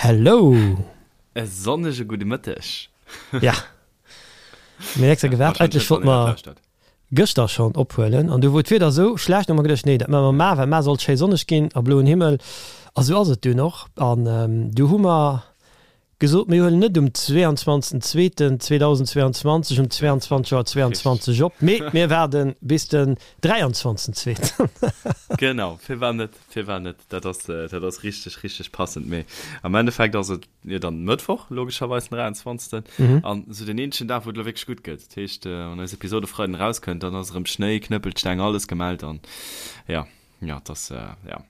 Hello! E sonnege gudde Mëtteg! Ja, mir hunn extra gewaart. Eigentlech wollte mer gëschter schonn ophuelen an du wor d'Wieder esou schlecht, hu mer geduecht, nee, dat maache mer mar, well mar sollt schéi sonneg ginn a bloen Himmel. A sou ass et dunn och. An du hu mer gesot, mir huelen net um 22. 2. 2022 um 22 Auer 22 op, mee mir waarde bis den 23. 2. Genau, firwat net, firwat net? Dat ass, dat ass richteg, richteg passend. Mee am Endeffekt ass et jo dann Mëttwoch, logescherweis den 23. An esou den eenzegen Dag, wou et elo wierklech gutt gëtt. Dat heescht, wann eis Episode e Freiden erauskënnt, dann ass erëm Schnéi, Knëppelsteng, alles gemellt an jo. Ja, das, äh, ja.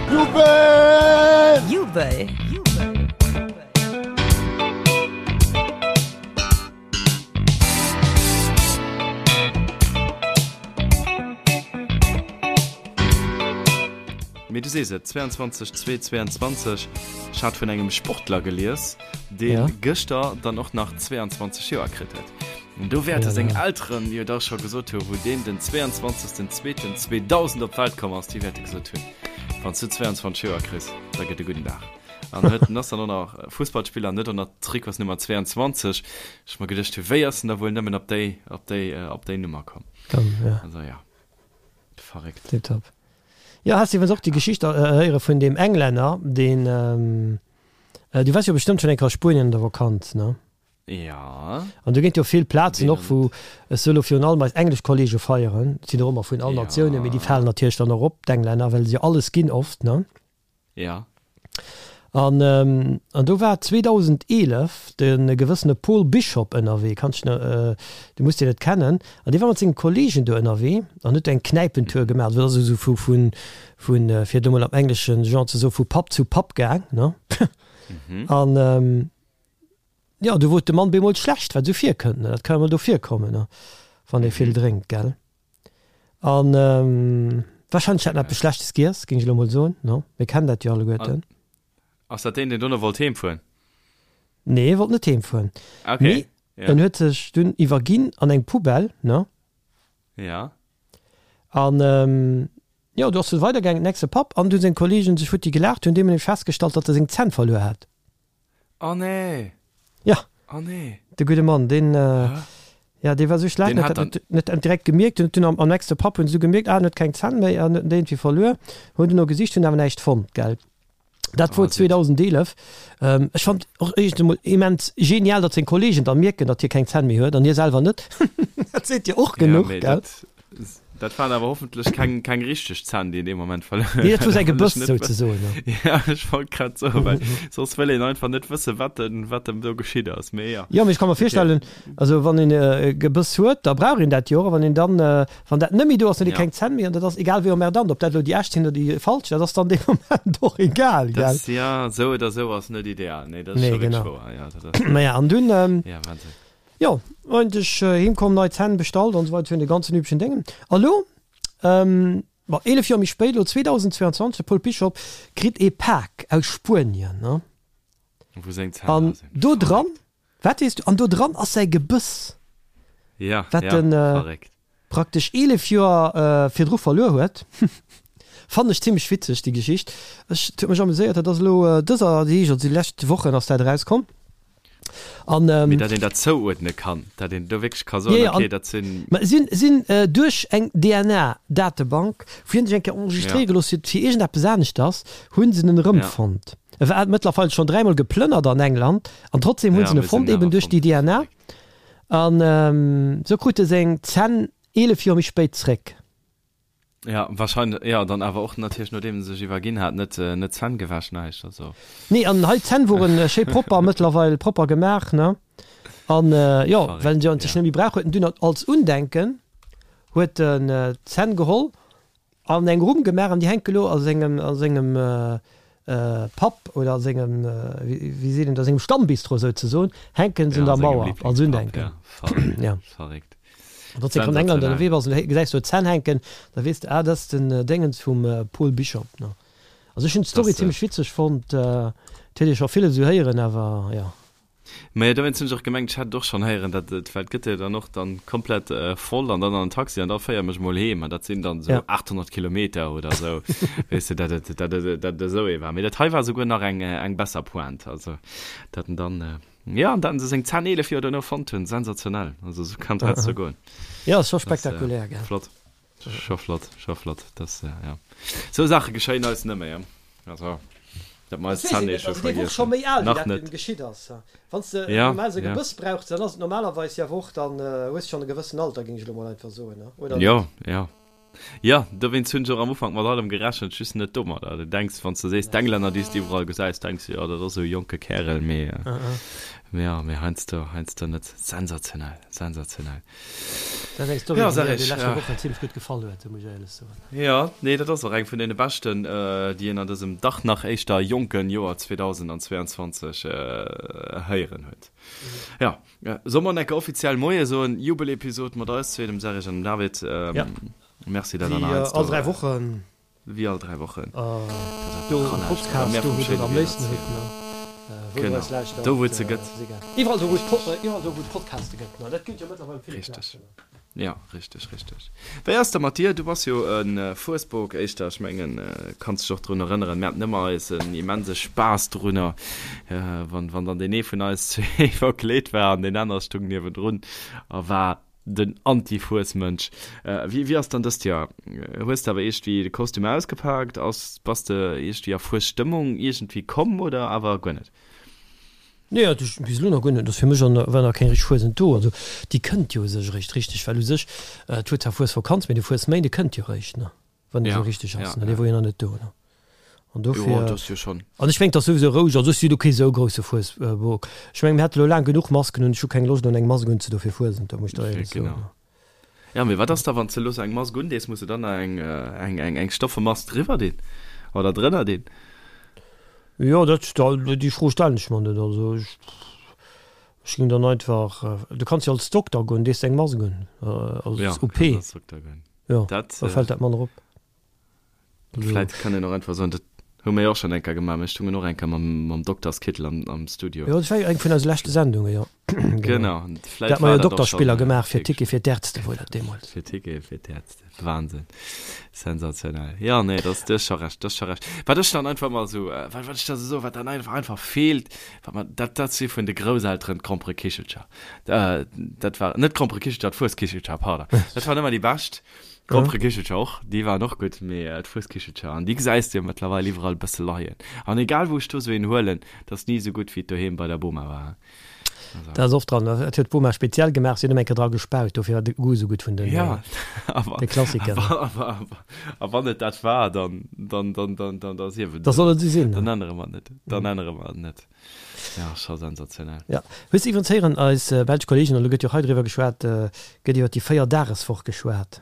Jubel! Jubel! Mee du sees et, 22 2 22, ech hat vun engem Sportler gelies, deen ja. gëschter dann och nach 22 Joer kritt huet. An do wäerte seng Elteren jo da scho gesot hu wou deen den 22.02.2000 op d'Welt komm ass, déi wäerte gesot hunn, wann s du 22 Joer kriss, da gëtt e gudden Dag. An huet en ass dann och nach Fussballspiller an huet och nach d'Trikotsnummer 22. Ech mer geduecht hu wéi ass en da wuel nëmmen op déi, op déi, op déi Nummer komm? Komm, ja. Also ja, verréckt. Tiptop. Jo, has de iwwrens och déi Geschicht héiere vun deem Englänner, deen, du waars jo bestëmmt schonn eng Kéier a Spuenien an der Vakanz, ne? Ja. An do ginn et jo vill Plazen och, wou, ech soe lo virun allem eis englesch Kollege feieren, et sinn och ëmmer vun all Natiounen, mee déi falen natierlech dann och op, d'Englänner, well se jo alles ginn oft, ne? Ja. An, an do war 2011 de gewëssene Paul Bishop ënnerwee, kanns dech nach, du muss deen net kennen, an dee war mat senge Kollegen do ënnerwee an huet do eng Knäipentour gemaach, also dat ass esou vu, vu, vu, fir et emol am engleschen Genre ze soen, vu Pub zu Pub gaang, ne? An, Jo, do wor et dem Mann bemol schlecht, wat esou virkënnt, ne? Dat ka jo mol do virkommen, ne, wann ee vill drénkt, gell? An wahrscheinlech hat en eppes Schlechtes giess, géing ech elo mol soen, ne? Mir kennen dat jo alleguerten. Ass dat deen, deen dono wollt heemfueren? Nee, e wollt net heemfueren. Okay, Mee ja. en huet sech dunn iwwerginn an eng Poubelle, ne? Ja. An jo, do ass et weidergaangen, nächste Pub, an du hunn seng Kollegen sech futti gelaacht, hunn deemol nämlech festgestallt, datt e seng Zänn verluer hat. Oh nee! Ja. Oh nee! De gudde Mann, deen, ja, dee war esou schlecht, Deen hat huet dat net, net direkt gemierkt. Hunn dunn am, am nächste Pub hunn se du gemierkt, ah, en huet keng Zänn méi an huet en déi iergendwéi verluer. Hunn duerno gesicht, hunn awer näischt fonnt, gell. Dat wor Oh, sick. 2011. Ech fand och éischt emol immens genial, datt seng Kollegen da mierken, datt hie keng Zänn méi huet an hie selwer net. Dat seet jo och Ja, genuch, mee gell. dat, Dat waren awer hoffentlech keng, keng richteg Zänn, déi en dee Moment verluer huet. Nee, dat wor säi Gebëss souzesoen. Ja, ech wollt grad soen, well soss wëll een einfach net wëssen, wat dem, wat dem do geschitt ass. Mee ja. Jo, mee ech ka mer virstellen, also wann een e Gebëss huet, da brauch een dat jo och. A wann een dann, wann dat net méi do ass, dann huet ee keng Zänn méi an dat ass egal wéi emmerdant, ob dat elo déi echt sinn oder déi falsch, dat ass dann dee Moment och egal, gell? Dat, ja, esou oder esou ass net ideal. Nee, dat ass Nee, scho wierklech genau. wouer. Ja, dat ass. Naja, an dunn, Ja, Wahnsinn. Jo, eigentlech heem komm, nei Zänn bestallt an esou weider, vun de ganzen üblechen Déngen. A lo, bon, 11 Joer méi spéit, lo 2022, de Paul Bishop kritt ee Pak aus Spuenien, ne? Wou seng Zänn An dra sinn. do dran, Verréckt. wat weess du, an do dran ass säi Gebëss, Ja, wat ja, en verréckt. praktesch 11 Joer virdru verluer huet. Fannen ech zimmlech witzeg, déi Geschicht. Ech, et huet mech amuséiert, dat ass elo dëser Deeg, also déi lescht Wochen ass dat erauskomm. An, ähm, Mee dat een dat zouuerdne kann, dat een do wierklech ka soen, ja, ja, okay, dat sinn. Ma sinn, sinn äh, duerch eng DNA-Datebank, wou hien sech eng Kéier enregistréiere ja. gelooss huet fir iergendeppes aneschters, hunn se en erëmfonnt. Ja. E war mëttlerweil schonn dräimol geplënnert an England an trotzdem hunn ja, se en fonnt, eben duerch déi DNA. An ähm, sou krut e seng Zänn 11 Joer méi spéit zréck. Ja, wahrscheinlech, ja, dann awer och natierlech nodeem en sech iwwerginn hat, net, net Zänn gewäsch, näischt, also. Nee, an hei d'Zänn woren schéi propper, mëttlerweil propper gemaach, ne? An jo, well en se sech net méi brauch, huet en dunn als Undenken huet en d'Zänn geholl an eng Rumm gemaach an déi hänke lo a sengem, a sengem Pub oder a sengem, wéi seet een dat, a sengem Stammbistro souzesoen, hänken se un der Mauer als Undenken. Ja, verréckt. Wann s de an England ënnerwee bass an du gesäis do Zänn hänken, da weess de, ah, dat ass den Déngens vum Paul Bishop. Also ech hunn d'Story zimmlech witzeg fonnt. Et huet ee scho villes esou héieren, awer jo. Mä dowéinst hunn ech och gemengt, ech hätt et och schonn héieren, dat et, well et gëtt jo dann och dann komplett voll an dann an den Taxi an da féier mech mol heem an dat sinn dann esou 800 Kilometer oder esou, weess de, dat et, dat et, dat et esou ee war. Mee dat hei war esouguer nach eng, eng besser Pointe, also dat en dann, jo, an dat en se seng 10, 11 Joer duerno fonnt hunn, sensationell, also esou kann et heiansdo goen. Jo, ass scho spektakulär, gell. Flott. Scho flott, scho flott. Das, äh, ja. Sou Saache geschéien eis net méi, also dat mer eis Zänn eh scho vergiessen. Déi Woch scho méi al, wéi Nach dat net. geschitt ass. Wann s de Ja, normal sou ja. Gebëss brauchs, dann ass et normalerweis jo awer och, dann hues de schonn e gewëssen Alter, géing ech elo mol einfach soen, oder net? Jo, jo. Jo, dowéinst hunn ech och am Ufank mat allem gerechent, just net domadder. Du denks, wann s de sees, d'Englänner, déi s de iwwerall gesäis, denks de, jo, dat ass esou e jonke Kärel, mee, mee jo, mee heiansdo, heiansdo net. Sensationell, sensationell. Dat ass eng Story, Ja, déi sag mir ech, déi leschte ja. Wochen zimmlech gutt gefall huet, muss ech éierlech soen. Ja, nee, dat ass och eng vun deene beschten, déi een an dësem dach nach éischter jonken Joer 2022 héieren huet. Ja, solle mer enke offiziell Moie soen? Jubelepisod mat eis zwee, dem Serge an dem David. Ja. Merci, dat der Wéi nach all heiansdo 3 Wochen. Wéi all 3 Wochen. Do um Podcast, do wou der am léifsten hutt, ne? Wou der eis lauschtert, Do wou et se gëtt. Ass egal. Iwwerall do wou et iwwerall do wou et Podcaste gëtt, ne? Dat gëtt jo mëttlerweil op ville Richteg. Plazen. Jo, richteg, richteg. Wéi ass da mat dir? Du bass jo e Fuesbok éischter, ech mengen, kanns dech och drun erënneren, mir haten ëmmer eisen immense Spaass drunner, wann wann dann deen ee vun eis zwee verkleet war an deen aner stung niewendrun a war Den Anti-Fuesmënsch. Wéi wéi ass dann dëst Joer? Hues de awer iergendwéi de Kostüm ausgepaakt? Ass bass de iergendwéi a Fuesstëmmung iergendwéi komm oder awer guer net? Nee, also ech bis elo nach guer net. Ass fir mech an war nach keng richteg Fuesent do. Also déi kënnt jo u sech eréischt richteg, well u sech et huet zwar Fuesvakanz, mee de Fuesméinde kënnt jo eréischt, ne? Wann et Ja, esou richteg ass, ja, ne? Dee ja. wor jo nach net do, ne? An Jo, dofir, dat ass jo schonn. an ech mengen, et ass souwisou roueg, also ech si lo kee sou grousse Fuesbok. Ech mengen, mir hate lo laang genuch Masken un, ech hu keng Loscht un eng Mask unzedo fir Fuesent, do muss ech der éierlech soen. Genau. Ja, mee wat ass da, wann s de elo sou eng Mask undees, muss de dann nach eng, eng, eng, eng stoffe Mask driwwer dinn oder drënner dinn? Jo, dat, déi Fro stellen ech mer net. Also ech, ech géing dann einfach, du kanns jo als Dokter goen, dees de eng Mask un, als Ja, OP. kanns als Dokter goen. Jo, Dat, da fält dat manner op. Also. Vläit kann een och einfach soen, dat hu mir jo och schonn eng Kéier gemaach, mir stungen och eng Kéier mam, mam Dokterskittel am, am Studio. Jo, dat war jo eng vun eise leschte Sendungen, jo. Genau, vläit war dat och schonn. Dat mer jo Dokterspiller gemaach fir Ticket fir d'Ärzte wor dat deemools. Fir Ticket fir d'Ärzte, Wahnsinn, sensationell. Jo, nee, dat, du hues scho Recht, du hues scho Recht. Wat ech dann einfach emmer esou, wat, wat ech da esou soen, wat dann einfach, einfach feelt, wat mer, dat, dat si vun de Grousselteren d'Gromperekichelcher. Dat war, net d'Gromperekichelcher, d'Fueskichelcher, pardon. Dat waren ëmmer déi bescht. D'Gromperekichelcher och, déi waren och gutt, mee d'Fueskichelcher, an déi gesäis de jo mëttlerweil iwwerall e bësse leien. An egal wou ech do sou een huelen, dat ass ni esou gutt wéi et doheem bei der Boma war. Also. Dat ass oft dran, dat huet d'Boma speziell gemaach, si huet ëmmer eng Kéier dra gespaut, dofir war de Goût esou gutt vun den, Ja, awer, de Klassikern. awer, awer, awer, a wann et dat war, dann, dann, dann, dann, dann, da sief et Da esou. soll et esou sinn. Dann ännere mer et net, dann ännere mer et net. Ja, scho sensationell. Ja. Hues de iwwerens héieren, eis belsch Kollegen, an elo gëtt jo och hei driwwer geschwat, gëtt iwwer déi Véierdageswoch geschwat?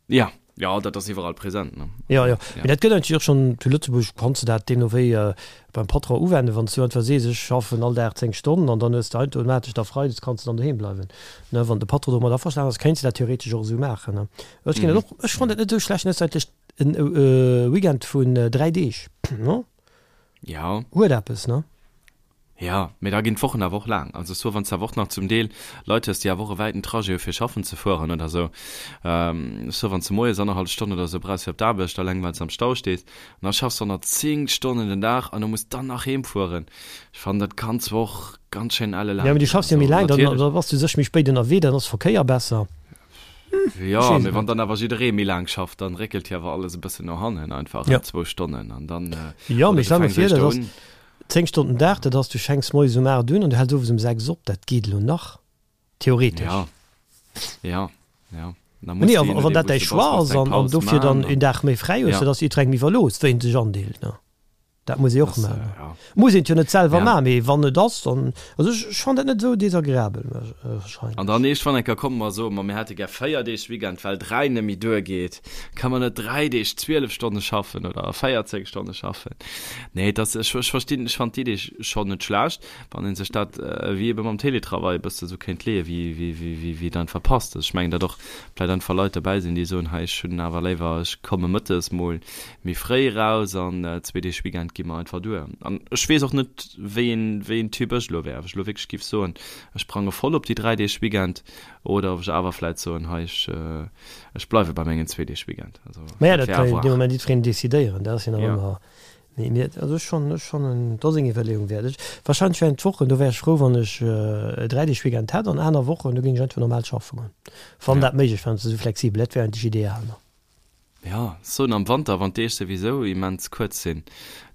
Ja, jo, dat ass iwwerall present, ne? Jo, jo. Mee dat gëtt eigentlech och schonn zu Lëtzebuerg, kanns de dat deemno wéi beim Patron uwenden, wann s du einfach sees, ech schaffen all Dag 10 Stonnen an dann hues de automatesch da freides kanns de dann doheem bleiwen, ne? Wann de Patron domat averstanen ass, kéints de dat theoretesch och esou maachen, ne? Ech ginn dat och, ech fannen dat net esou schlecht, ne? Et ass eigentlech en Weekend vun 3 Deeg, ne? Ja. Huet eppes, ne? Ja, mee da ginn d'Wochen awer och laang. Also soit wann s de awer och nach zum Deel Leit hues, déi awer och e wäiten Trajet hu fir schaffen ze fueren oder esou, soit wann s de moies annerhallef Stonn oder esou brauchs fir op d'Aarbecht, alleng well s am Stau stees, an da schaffs de och nach 10 Stonnen den Dag an du muss dann nach heem fueren. Ech fannen, dat kann zwar och ganz schéin elle Ja, mee du laang ginn. schaffs jo Also méi laang, dann natierlech. da bass du sech méi spéit ënnerwee, dann ass Verkéier besser. Jo, mee wann dann awer jidderee méi laang schafft, dann réckelt jo awer alles e bëssen no hannen, einfach Ja. zwou Stonnen an dann, Jo, oder mee du stell mer fänks vir, dat éischter ass un. 10 Stonnen Dag, dat ass, du fänks moies um 8 un an du häls owes um 6 op, dat geet elo nach, theoretesch. Ja, ja, ja. Da muss Nee, de, a je wann nodeem dat wou däi s de bass, Choix muss ass de eng an, an Paus dofir dann man een an, Dag méi fräi hues, ja. dat ass jiddwerengem iwwerlooss, wéi en sech andeelt, ne? Dat muss ee och Das, maachen. äh, ja. Muss een et jo net selwer Ja. maachen, mee wann et ass, dann, also ech, ech fannen dat net esou desagreabel, An dann iergendwann eng Kéier komme mer a soe mer, mir hätte gär 4 Deeg Weekend, well 3 net méi duergeet. Ka mer net 3 Deeg 12 Stonne schaffen oder 14 Stonne schaffen? Nee, dat, ech, ech verstinn, ech fannen d'Idee schonn net schlecht, wann ee sech dat wéi ebe mam Télétravail e bësse esou kéint leeën, wéi, wéi, wéi, wéi, wéi et einfach passt. Also ech mengen, datt och vläicht einfach Leit derbäi sinn, déi soen, hei, ech hunn awer léiwer, ech komme mëttes mol méi fréi eraus an zwee Deeg Weekend. geet mer einfach duer. An ech weess och net, wéi een, wéi een Typ ech elo wär, ob ech elo wierklech géif soen, ech sprange voll op déi 3 Deeg Weekend oder ob ech awer vläit soen, hei ech, ech bleiwe bei mengen zwee Deeg Weekend. Also Mä dat kann jo dee Moment jiddwereen decidéieren, dat ass jo nach ëmmer. Mee mir, also ech schonn, ech fannen, dat ass eng Iwwerleeung wäert. Ech, wahrscheinlech während d'Wochen, do wär ech frou, wann ech e 3 Deeg Weekend hätt an aner Wochen, do géing ech einfach normal schaffe goen, wann dat méiglech wär, wann se esou flexibel, dat wär eigentlech ideal, ne? Jo, soen am Wanter, wann d'Deeg souwisou immens kuerz sinn,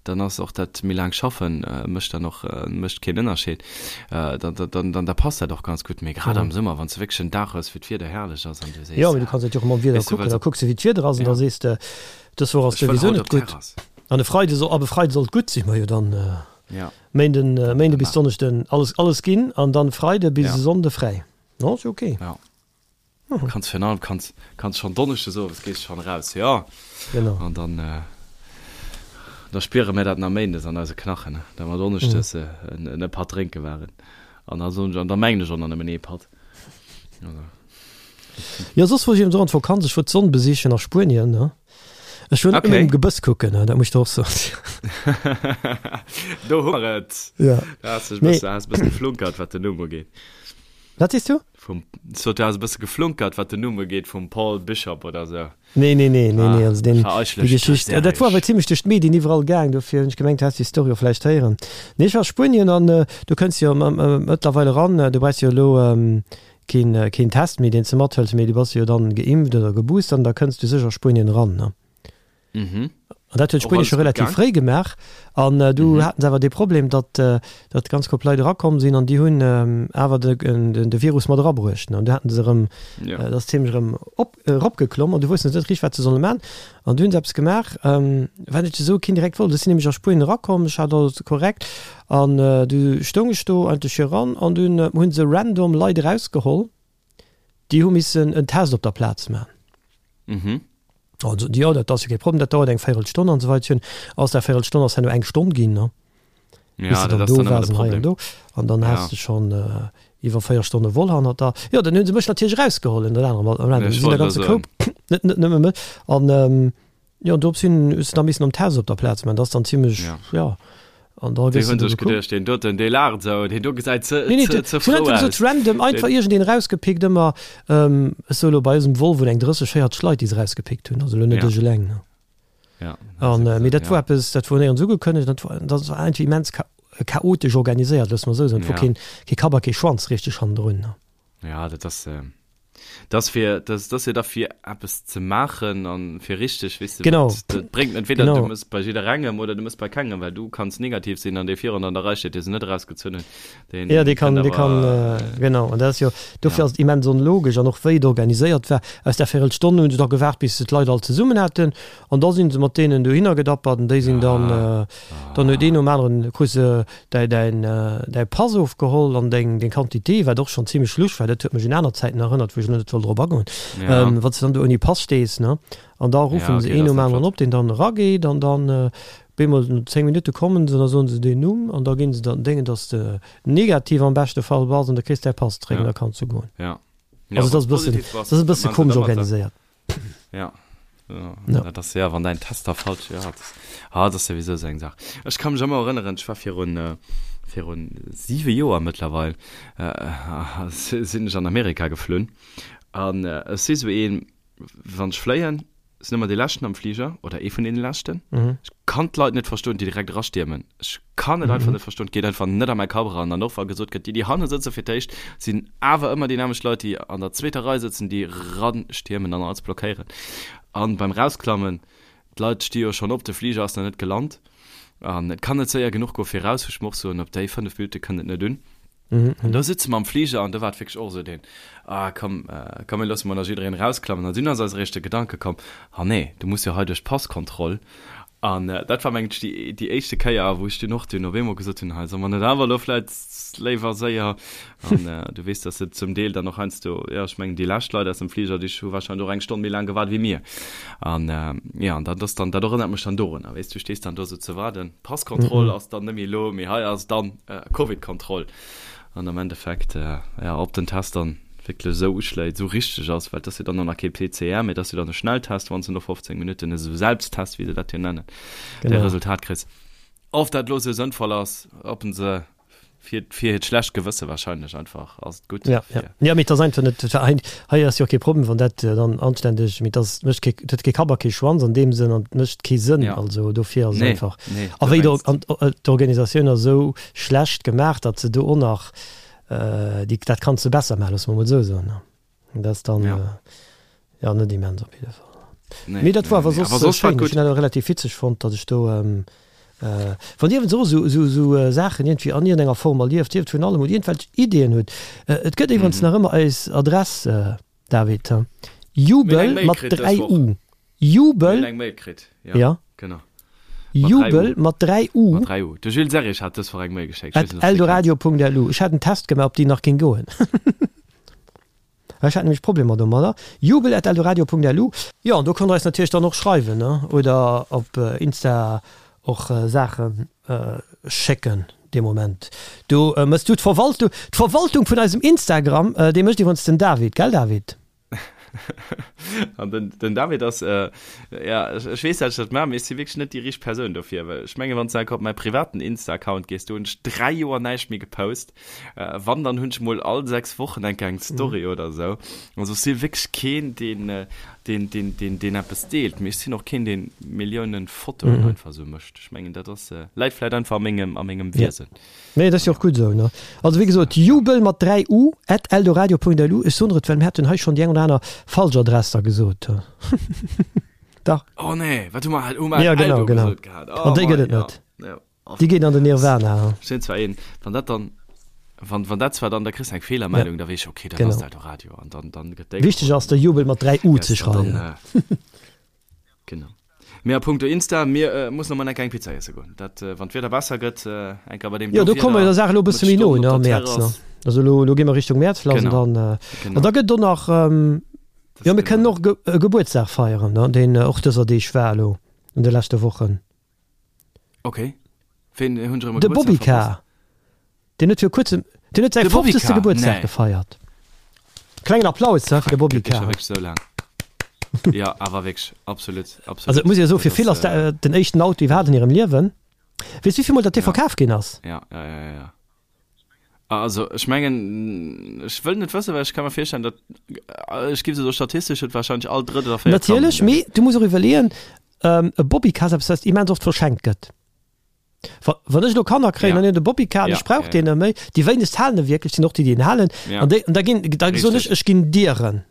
dann ass och dat méi laang schaffen mécht dann och mécht keen Ënnerscheed, dann dann da passt dat och ganz gutt. Mee grad am Summer, wann s de wierklech en Dag hues, wou d'Wieder herrlech ass an du sees, Jo, mee du kanns dat jo och mam Wieder kucken, da kucks de wéi d'Wieder ass an da sees de, dës Woch ass souwisou net gutt an e Freide soll, ab e Freide soll et gutt sinn, majo dann Méinden Méinde bis Donneschden alles alles ginn an dann Freide bis e Sonnde fräi, non ass jo ok. Kanns virun allem kanns kanns schonn Donneschdes owes gees schonn eraus, jo. Genau. An dann da spiere mir dat nach Méindes an eise Knachen, da mer Donneschdes en e Patt drénke waren. An da soen ech, an da mengen ech och nach nëmmen ee Patt. Also. Jo, soss wor ech eben och an d'Vakanz, ech wor d'Sonn besichen a Spuenien, ne. Ech wor net nëmmen um Gebëss kucken, ne, dat muss ech der och soen. Do hu mer et. Ja. Da has dech e bësse, has e bësse geflunkert, wat den Numm ugeet. Wat sees du? Vum, sot du has e bësse geflunkert, wat den Numm ugeet vum Paul Bishop oder sou. Nee, nee, nee, nee, nee, also deen, déi Geschicht, dat wor awer zimlech duerch d'Medien iwwerall gaang, dofir hunn ech gemengt, du häss déi Story och vläicht héieren. Nee, ech war a Spuenien an do kënns jo mëttlerweil eran, du brauchs jo elo keen, keen Test méi, deen s de mathëls, mee du bass jo dann geimpft oder geboostert an da kënns du sécher a Spuenien eran, ne? Mhm. An dat huet Spuenie scho relativ fréi gemaach. An äh, du mhm. haten se awer de Problem, datt äh, datt ganz Koup Leit erakomm sinn an déi hunn ähm, awer de, den, de Virus mat erabruecht. An du haten se erëm ja. äh, dat ziemlech erëm op, äh, eropgeklomm an du wussten net richteg, wat se solle man. An du hunn se eppes gemaach, ähm, wat ech esou keen direkt wollt. Ech sinn nämlech a Spuenien erakomm, ech hat alles korrekt an äh, du stoung ech do eigentlech hiran an dunn äh, hunn se random Leit erausgeholl. Déi hu missen en Test op der Plaz man. Mhm. Also, jo, dat ass jo kee Problem, dat dauert eng Véirelstonn an esou weider. Aus där Véirelstonn ass herno eng Stonn ginn, ne? Ja, Bis de dat dann ass do dann ëmmer waars de an hei an Problem. do. An dann has Ja. de schonn iwwer 4 Stonne voll hannert der. Jo, dann hu se mech natierlech erausgeholl, ënnert anerem. An Ja, ech sinn der wollt elo ganze soen. Koup, net, net nëmme mech. An, Jo, an dorops hin hues de da missen am Test op der Plaz man, dat ass dann zimmlech, Ja. ja, an da Déi gëss hunn de do sech gekuckt. geduecht, deen doten, dee laacht esou, deen do gesäit ze, Nee, nee, ze, ze se hunn frou einfach aus. gesot, random, einfach Deen, iergendeen erausgepickt, ëmmer, ähm, ech soe lo bei eisem Volvo eng 30, 40 Leit, déi se erausgepickt hunn, also lo net Ja. ech eleng, ne. Ja, dat An, ass mee dat ja. wor eppes, dat wor néierens ugekënnegt, dat wor, dat war einfach immens cha chaotesch organiséiert, loosse mer esou soen, et wor Ja. keen, kee Kapp a kee Schwanz richteg hannendrun, ne. Ja, dat ass, dat ass fir, dat ass jo da fir eppes ze maachen an fir richteg, weess de, Genau. wat, dat bréngt entweder Genau. du mëss bei jidderengem oder du mëss bei kengem, well du kanns negativ sinn an dee virun an der Rei steet, dee se net erausgezunn hunn, deen Ja, dee kann, kënnt dee kann, awer, genau. An dat ass jo, dofir ja. ass et immens onlogesch an och wéi et organiséiert war. Aus där Véirelstonn hunn se da gewaart, bis se d'Leit all zesummen haten an da sinn se mat deenen dohinner gedappert an déi sinn dann, Ah. Dann huet een nom aneren krus de däi däin däi Pass ofgeholl an deng deng Quantité, wat och schonn zimlech lusch war, dat huet mech un aner Zäiten erënnert, wou ech elo net wëll drop agoen, Ja. wann s de dann do ouni Pass stees, ne, an da Ja, ruffen se okay, een dat nom ass net aneren flott. op, deen dann erageet an dann bemol no 10 Minutte kommen se an da soen se deen Numm an da ginn se dann déngen, dass de negativ am beschte Fall bass an da kriss däi Pass zeréck an Ja. da kanns du goen. Ja. Ja, Also et wann ass s e bëssen, positiv bass, et ass e da bësse maan se komesch da mat der. organiséiert. Ja. Ja, Ja. dat ass ja, wann däin Test da falsch, ja, dat, ah, dat ass souwisou esou eng Saach. Ech ka mech ëmmer erënneren, ech war virun, äh, virun siwe Joer mëttlerweil, äh, sinn ech an Amerika geflunn an äh, ech si sou een, wann ech fléien, sinn ëmmer dee Leschten am Fliger oder ee vun deene Leschten. Mhm. Ech kann d'Leit net verstoen, déi direkt erastiermen. Ech kann et einfach net verstoen, et geet einfach net a mäi Kapp eran. An och wa gesot gëtt, déi, déi hanne sëtze fir d'éischt, sinn awer ëmmer déi nämmlecht Leit, déi an der zweeter Rei sëtzen, déi ranstiermen an alles blockéieren. An beim Rausklammen, d'Leit sti jo schonn op, de Fliger ass nach net gelant an et kann net séier genuch goe fir raus, wou ech mer och soen, op déi 5 Minutte kënnt et net un. An do sëtze mer am Fliger an do war et wierklech och esou deen, ah komm, komm mir loosse mol nach jiddereen erausklammen. An dunn ass eis eréischt de Gedanke komm, ah nee, du muss jo hei duerch d'Passkontroll. An dat war mengen ech déi, déi éischte Kéier, wou ech dunn och dunn op eemol gesot hunn, hei solle mer net awer elo vläit léiwer séier. An du weess, dass se zum Deel dann och heiansdo, jo ech mengen déi lescht Leit aus dem Fliger, déi hu warscheinlech och eng Stonn méi laang gewaart wéi mir. An jo, an dat ass dann, dat erënnert mech dann dorunner, weess du, stees dann do esou ze waarden, Passkontroll ass dann net méi elo, mee hei ass dann Covid-Kontroll. An am Endeffekt, jo, ob den Test dann wierklech esou uschléit, esou richteg ass, well et ass jo dann och nach kee PCR, mee et ass jo dann e Schnelltest, wann s de no 15 Minutten, esou Selbsttest, wéi se dat jo nennen, däi Resultat kriss. Of dat lo sou sënnvoll ass, ob en se fir fir hiert schlecht Gewësse wahrscheinlech einfach ass et gutt Ja, ja. fir. Ja, mee et ass einfach net, et war hei, hei ass jo och kee Problem, wann dat dann anständeg, mee et ass, mécht kee, et huet kee Kapp a kee Schwanz an deem Sënn an et mécht kee Sënn. Ja. Also dofir ass et Nee, einfach, nee, a du wéi mengs. an d'Organisatioun ass esou schlecht gemaach, datt se do och nach déi, dat kanns de besser maachen, loosse mer emol esou soen. Dat ass dann Ja. äh, ja, net immens op jidde Fall. Nee, Mee dat nee, war awer nee. soss Awer soss war schéin. et Ech gutt. hunn dat och relativ witzeg fonnt, datt ech do ähm, äh, wann Dir iwwens och esou, esou, esou äh, Saachen iergendwéi an iergendenger Form erlieft, sief et vun allem oder iergendwelch Ideeën hutt, äh, et gëtt iwwerens Mhm. nach ëmmer eis Adress, äh, David, he? Mir hunn eng Jubel Mail mat kritt dës 3 Woch. U. Mir hunn Jubel, eng Mail kritt, ja, ja. genau. Mat 3 U. Jubel mat 3 U. Mat 3 U. De Jules Serrig hat dës Woch eng Mail geschéckt. Ech At weess net, ob s de déi kenns. eldoradio.lu. Ech hat en Test gemaach, ob déi nach géing goen. Ech hat nämlech Problemer domadder. Jubel at eldoradio.lu. Jo, an do konnt der eis natierlech dann och schreiwen, ne? Oder op Insta och Saache schécken dee Moment. Do mëss du d'Verwaltung, d'Verwaltung vun eisem Instagram, déi mécht iwwerens den David, gell David? An den, den David ass, äh, ja, ech, ech weess, dat ech dat maachen, mee ech si wierklech net déi richteg Persoun dofir, well ech mengen, wann s du enker op mäi privaten Insta-Account gees, do hunn ech 3 Joer näischt méi gepost. Äh, wann, dann hunn ech mol all 6 Wochen enker eng Story oder esou. Also ech si wierklech keen, deen, äh, deen, deen, deen, deen eppes deelt, mee ech sinn och keen, deen Milliounen Fotoen einfach esou mécht. Ech mengen, dat ass, äh, läit vläit einfach a mengem, a mengem Wiesen. Nee, dat ass jo och gutt esou, ne? Also wéi gesot, jubel mat 3 u at eldoradio.lu. Ech soen der et, well mir haten hei schonn déi eng oder aner falsch Adress da gesot. Dach. Oh nee, wat hu mer halt, hu mer Ja, genau, Eldo genau. gesot gehat? Oh An déi gëtt mei, et ja, net. ja. Déi geet an den Nirvana. Ech sinn zwar een, wann dat dann, wann, wann dat zwar dann, da kriss de eng Feelermeldung, da weess ech, okay, dat Genau. ass d'Eldoradio an dann, dann gëtt déi Wichteg geholl. ass, de Jubel mat 3 u ze Yes, an dann, schreiwen. äh, genau. Mee a punkto Insta, mir äh, mussen noch mal enker eng Pizza iesse goen. Dat, äh, wann d'Wieder besser gëtt, äh, enker bei deem Jo, do do komme mer der Wieder Saach elo e mat bësse méi no, Stonnen ne, op am der Mäerz, ne. Terrass. Also elo, elo gi mer Richtung Mäerz lass an Genau, dann, äh, genau. an da gëtt et och nach, ähm, Das jo, mir kënnen genau. och Ge e Gebuertsdag feieren, ne, deen och dëser Deeg war elo an de leschte Wochen. Okay. Ween hunn ech erëm e De Gebuertsdag Bobby verpasst? Car, deen huet vir kuerzem, deen huet säi De Bobby 50. Car, Gebuertsdag nee. gefeiert. Klengen Applaus, he, fir de Bobby Gëtt dee scho Car. wierklech esou laang? Ja, awer wierklech, absolut, absolut. Also et muss ee jo soen, fir Dat vill ass, ass dat den éischten Auto iwwerhaapt an hirem Liewen. Weess du, wéi vill mol datt dee Ja. verkaf ginn ass? Ja, ja, ja, ja, ja. Also ech mengen, ech wëll net wëssen, well ech ka mer virstellen, datt, ech géif esou statistesch huet wahrscheinlech all drëtt oder véiert Kand Natierlech, en. mee du muss och iwwerleeën, e Bobbycar ass eppes, wat immens oft verschenkt gëtt. Wa, wann ech elo Kanner kréien Ja. an hunn de Bobbycar an Ja, ech brauch ja, deen ja. net méi, déi wéinegst halen e wierklech, sinn och déi, déi en halen. Ja. An déi, an da ginn, da soen ech, Richtig. ech ginn dir en.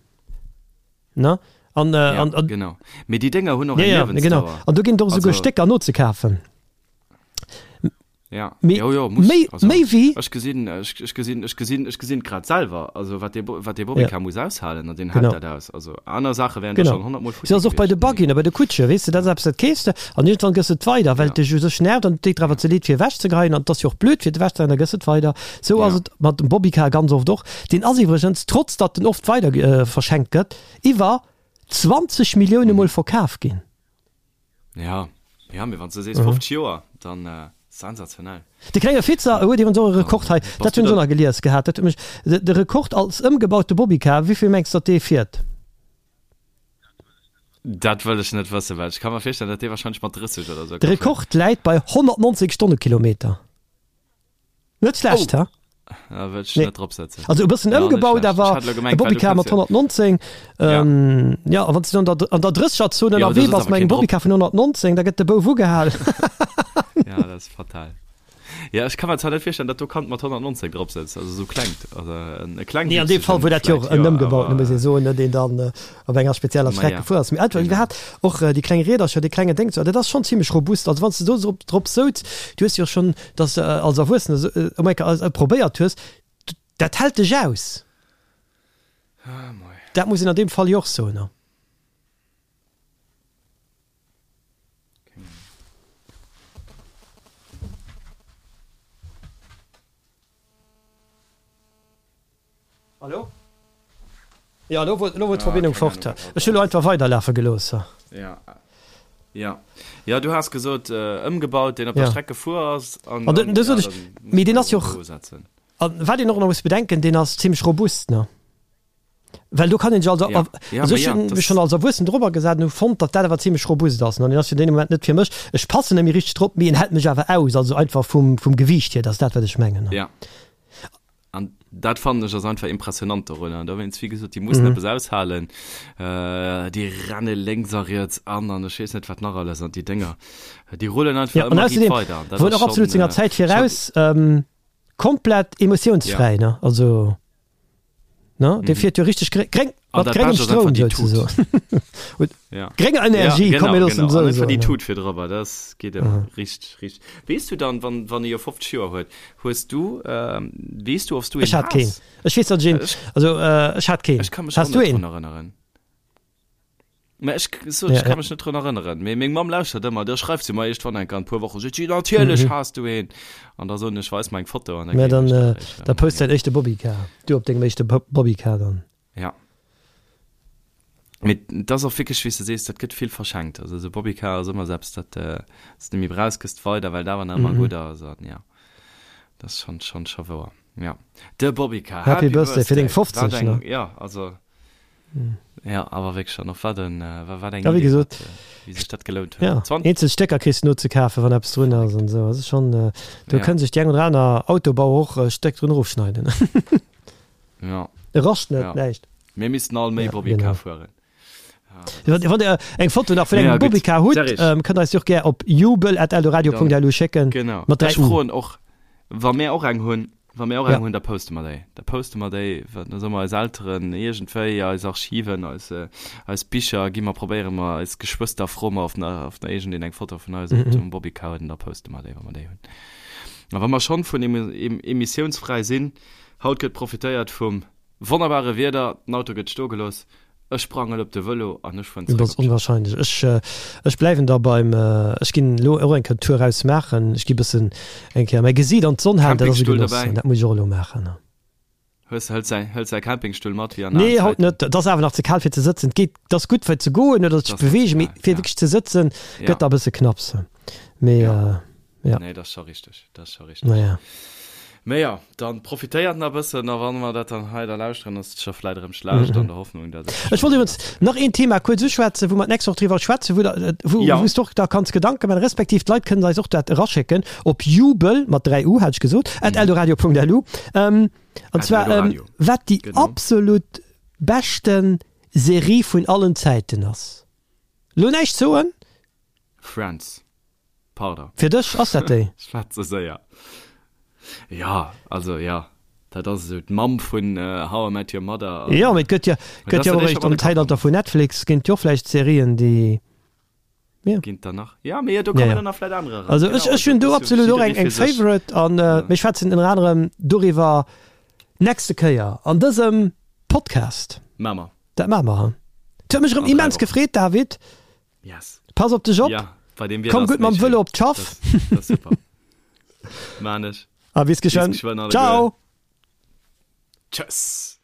Ne? An, äh, Ja, an, an, genau. Mee déi Dénger hunn och ja, eng ja, genau. Liewensdauer. An do ginn et och esouguer Also- Stécker nozekafen. Ja. Mee, jo, jo, muss. méi, Also, méi wéi. Ech gesinn, ech, ech gesinn, ech gesinn, ech gesinn grad selwer, also wat dee, wat dee Bobbycar Ja. muss aushalen an deen hält Genau. dat aus. Also aner Saache wären da Genau. schonn 100 Mol futti Sou ass och bei de gewiescht. Buggyen a bei de Kutsche, weess de, dat ass eppes, dat keefs de an iergendwann gëss de et weider, well Ja. et dech u sech nervt an et deet der awer ze leed fir ewechzegeheien an et ass jo och blöd fir et ewechzegeheien, da gëss et weider. Sou ass Ja. et mat dem Bobbycar ganz oft och. Deen ass iwwregens, trotz datt en oft weider verschenkt gëtt, iwwer 20 Millioune Mol verkaf ginn. Ja, ja, mee wann s du sees 50 Joer, dann äh, sensationell. De klenge Fitzer huet iwwerens och e Rekord hei, Bass dat du hunn ech och dann nach gelies gehat, dat huet mech, de, de Rekord als ëmgebaute Bobbycar, wéi vill mengs de, datt dee fiert? Dat wëll ech net wëssen, well ech ka mer virstellen, datt dee wahrscheinlech mat 30 oder sou De ka fueren. Rekord läit bei 190 Stonnekilometer. Net schlecht, Oh! ha? Da wëll ech Nee. net drop setzen. Also e bëssen Ja, net ëmgebaut, schlecht. Ech awer hat elo e gemengt, well du Bobbycar mat kënns jo. 119. Ja. Ähm, ja, a wann s du an der, an der Drëssegerzon Ja, awer ënnerwee do sëtzt bass awer mat engem keen drop. Bobbycar vun 119, da gëtt de Bouf ugehal. Ja, dat ass fatal. Ja, ech ka mer zwar net virstellen, datt do Kand mat 119 drop sëtzt, also esou klengt, also en e Nee, an deem klengwüchsegen Fall wor dat jo och vläit, en jo, ëmgebauten, awer muss ee soen, ne, deen dann op enger spezieller Ma Streck ja, gefuer ass. Mee einfach genau. iwwerhaapt och déi kleng Riedercher, dee klengen Déngs, dat ass schonn zimlech robust. Also wann s de do drop, drop souz, du hues jo schonn, dass de als Erwuessene sou ëm eng Kéier probéiert hues, dat hält dech aus. Ah, moi. Dat muss een an deem Fall jo och soen, ne. Hallo? Ja, elo wor, elo wor d'Verbindung fort. Ech hu lo einfach weiderlafe gelooss. Ja. Ja. Ja, du has gesot, äh, ëmgebaut, deen op der Ja. Streck gefuer ass. An, An an, do sot ja, ech, dann muss mee deen man ass jo och och, setzen. an wat een och nach muss bedenken, deen ass zimmlech robust, ne? Well do kann een sech als, ja. Ja, also ech hunn mech schonn als Erwuessen drobber gesat an hu fonnt, datt dat awer zimmlech robust ass. An en ass fir deen Moment net fir mech. Ech passen net méi richteg drop, mee en hält mech awer aus, also einfach vum, vum Gewiicht hier, dat ass dat, wat ech mengen. Ja. An dat fannen ech ass einfach impressionant dorunner. An dowéinst, wéi gesot, déi mussen mhm. eppes aushalen. Äh, déi renne lénks a riets an an ech weess net wat nach alles an déi Dénger. Déi rullen einfach ja, ëmmer riit weider. Dat wor och absolut senger Zäit viraus. Ähm, komplett emotionsfräi, ja. ne? Also. Ne? Dee fiert jo richteg gréng, gréng, mat gréngem Stroum souzesoen. Ja. Grénger Energie, ja, komm, mir loossen genau. An einfach déi Tut fir drëwer, das geet ëmmer mhm. richteg, richteg. Weess du dann, wann, wann e jo 50 Joer huet, hues du, ähm, weess du, ob du een Ech hat keen. Ech weess, datt ech een, also, äh, ech hat keen. Ech kann mech och net drun erënneren. Mä ech sot, ech ka mech net drun erënneren. Mee meng Mamm lauschtert ëmmer, da schreift se mer iergendwann eng Kéier an e puer Wochen, seet si, natierlech has du een. An da soen ech, weis mer eng Foto an da Mä dann, da post däin éischte Bobbycar. Du op dengem éischte Bobbycar dann. Ja. Mee et ass och wierklech, wéi s de sees, dat gëtt vill verschenkt. Also esou Bobbycar ass ëmmer esou eppes, dat s de méi brauchs, gëss de weider, well et awer nach ëmmer gutt ass. An jo, dat ass schonn, schonn, scho wouer. Ja, de Bobbycar. Happy Birthday fir deng 50, ne? Jo, also. Ja, awer wierklech an och wat en, wat eng Ja, wéi Idee, gesot, wat, wéi sech dat gelount huet. Ja, 20. eenzel Stécker kriss de no ze kafen, wann eppes drun ass an esou. Also schonn, do Ja. kënne sech déi eng oder aner Autobauer och e Stéck drun erofschneiden. Ja. E rascht net, Ja. näischt. Mir missten all méi Ja, Bobbycar genau. fueren. Ja, dat ass. Wann der eng Foto nach vun Naja, engem gutt. Bobbycar hutt, Serge. ähm, kënnt der eis déi och gär op jubel@eldoradio.lu schécken. Genau. Mat 3 Ech U. froen och, wa mär och eng hunn, Wa mir och eng Ja. hunn, da poste mer déi. Da poste mer déi, wa da soe mer eis Elteren iergendwéi, eis Archiven, eis, eis Bicher gi mer, probéiere mer, eis Geschwëster froe mer, ob nach, ob nach iergendeen eng Foto vun eis op dem Bobbycar huet an da poste mer déi, wa mer déi hunn. A wa mer schonn vun emissiounsfräi sinn, haut gëtt profitéiert vum wonnerbare Wieder, den Auto gëtt stoe gelooss, Ech sprangen op de Vëlo an ech fueren Dat zeréck ass op d'Schaff. onwahrscheinlech. Ech, ech bleiwen da beim, ech ginn elo och eng Kéier d'Tour raus maachen. Ech gi bëssen eng Kéier mäi Gesiit an d'Sonn halen. Dat ass e Campingstull Genoss dobäi? an dat muss ech och elo maachen. Hues, hëls säi, hëls säi Campingstull mat wéi an alen Nee, haut Zäiten? net. Et ass awer nach ze kal fir ze sëtzen. Et geet, et ass gutt fir ze goen oder Et sech ass nach ze bewegen, mee kal, fir ja. wierklech ze sëtzen Ja. gëtt da e bësse knapps. Mee Ja. Ja. Nee, dat ass scho richteg, dat ass scho richteg. Naja. Mee jo, dann profitéiert nach e bëssen a wann mer dat dann hei da lauschteren, ass et scho vläit erëm schlecht an der Hoffnung, dat et Ech wollt iwwregens nach een Thema kuerz uschwätzen, wou mer d'nächst Woch driwwer schwätzen, wou der, wou, Ja. wou s de och da kanns Gedanke maachen, respektiv d'Leit kënnen eis och dat eraschécken op jubel, mat 3 u hat ech gesot, at eldoradio.lu. Ähm, an At zwar, ähm, eldoradio. wat déi Genau. absolut beschten Serie vun allen Zäiten ass. Lo näischt soen. Friends. Pardon. Fir dech ass dat déi? Ech war ze séier. Ja, also ja, dat ass esou d'Mamm vun How I Met Your Mother. Jo, mee et gëtt jo, gëtt jo och eréischt am Zäitalter vun Netflix ginn et jo och vläicht Serien, déi, jo. Ginn et der nach? Ja, mee do kommen dann nach vläicht anerer eran. Also ech, ech hunn do absolut och eng, eng Favorite an mir schwätzen ënner anerem doriwwer nächste Kéier an dësem Podcast. Maache mer. Dat maache mer. Et huet mech erëm immens gefreet, David. Yes. Pass op dech op. Ja, bei dem Wieder Komm gutt mam Vëlo op d'Schaff. Das, das super. Maan ech. A bis geschwënn. Bis geschwënn Ciao. Tschëss.